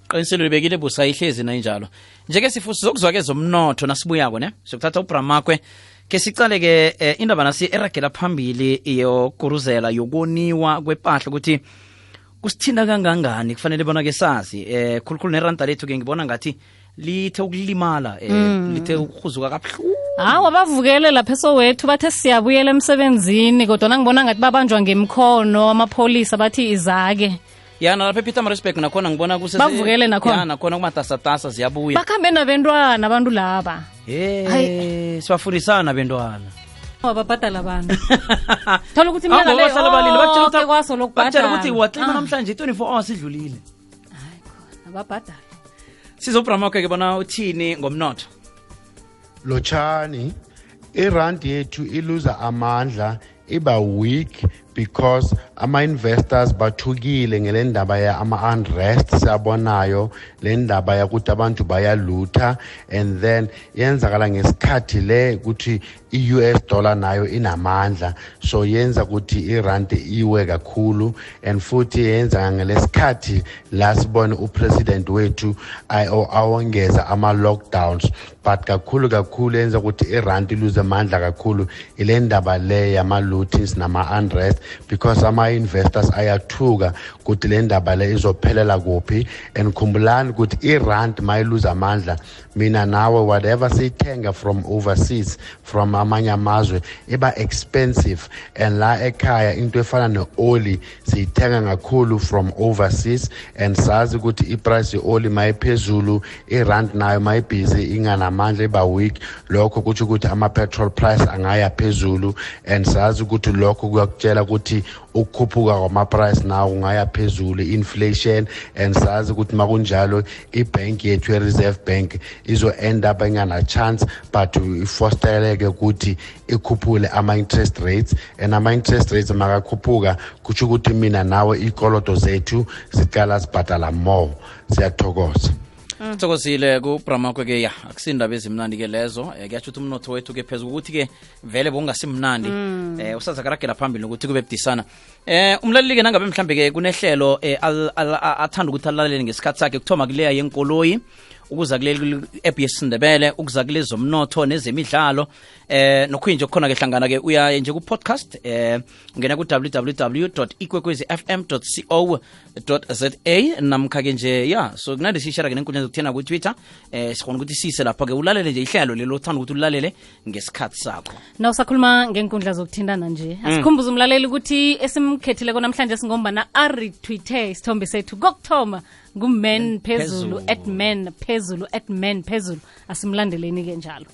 Qiniselo libekile busa ihlezi na injalo. Njeke sifuthi zokuzwake zomnotho nasibuyako ne. Sokuthatha uBramakwe ke sicale ke indaba nasi eragela phambili yokuruzela yokoniwa kwepahla ukuthi kusithinda kangangani kufanele bona ke sazi khulukhulu neranda lethu ke ngibona ngathi lithe ukulimala lithe ukhuzuka kabuhlungu. Hawa bavukele lapha eSoweto bathe siyabuyela emsebenzini kodwa ngibona ngathi babanjwa ngemkhono amapolice bathi izake. Yana lapha ePietermaritzburg nakhona ngibona kusese bavukele nakhona. Yana nakhona kumatasatasa ziyabuya. Bakhambe nabantwana abantu laba. Sibafundisana bentwana. Wababhadala abantu. Thola ukuthi mina le batshela kwaso lokubhadala. Batshela ukuthi watlima namhlanje 24 hours idlulile. Hayi khona ababhadala. SizoBramakwe ke bona uthini ngomnotho? Lochani irand yethu iluza amandla iba weak because ama-investors bathukile ngele ndaba ya ama-unrest siyabonayo le ndaba yakuthi abantu bayalutha and then yenzakala ngesikhathi le ukuthi i-US dollar nayo inamandla so yenza ukuthi irand iwe kakhulu and futhi yenza ngelesikhathi la sibone upresident wethu awongeza ama-lockdowns but kakhulu yenza ukuthi irand iluze amandla kakhulu ile ndaba le yama-lootings nama-unrest because ama-investors ayathuka ukuthi le ndaba le izophelela kuphi and khumbulani ukuthi irand mayiluza amandla mina nawe whatever siyithenga from overseas from amanye amazwe iba expensive and la ekhaya into efana ne-oli siyithenga kakhulu from overseas and sazi ukuthi iprice ye-oli mayiphezulu irand nayo mayibhizi inganamandla iba weak lokho kuthi ukuthi ama-petrol price angaya phezulu and sazi ukuthi lokho kuyakutshela ukuthi ukukhuphuka kwama-price nawo ungaya phezulu inflation and sazi ukuthi makunjalo ibank yethu ye-reserve bank izo-end up ingana-chance but ifostereleke ukuthi ikhuphule ama-interest rates and ama-interest rates makakhuphuka kutsho ukuthi mina nawe ikolodo zethu ziqala sibhadala more. Siyathokoza. Sithokozile kuBramakwe ke ya akusindaba ezimnandi ke lezo kuyatsho ukuthi umnotho wethu ke phezulu ukuthi ke vele bongasimnandi usazakaragela phambili ukuthi kube budisana umlaleli ke nangabe mhlambe ke kunehlelo athanda ukuthi alalele ngesikhathi sakhe kuthoma kuleya yenkoloyi ukuza kuleli app yesindebele ukuza kulezo zomnotho nezemidlalo nokhuyinje khona ke hlangana ke uya nje ku podcast ungena ku www.ikwekwezifm.co.za namkha ke nje ya so kunande sishara ke nenkundla zokuthena ku Twitter sikhona ukuthi sise lapha ke ulalele nje ihlelo lelo uthanda ukuthi ulalele ngesikhathi sakho na usakhuluma ngenkundla zokuthindana nje asikhumbuza umlaleli ukuthi esimkhethile namhlanje singombana retweete isithombe sethu kokuthoma ngumen phezulu @men phezulu @men phezulu asimlandeleni ke njalo.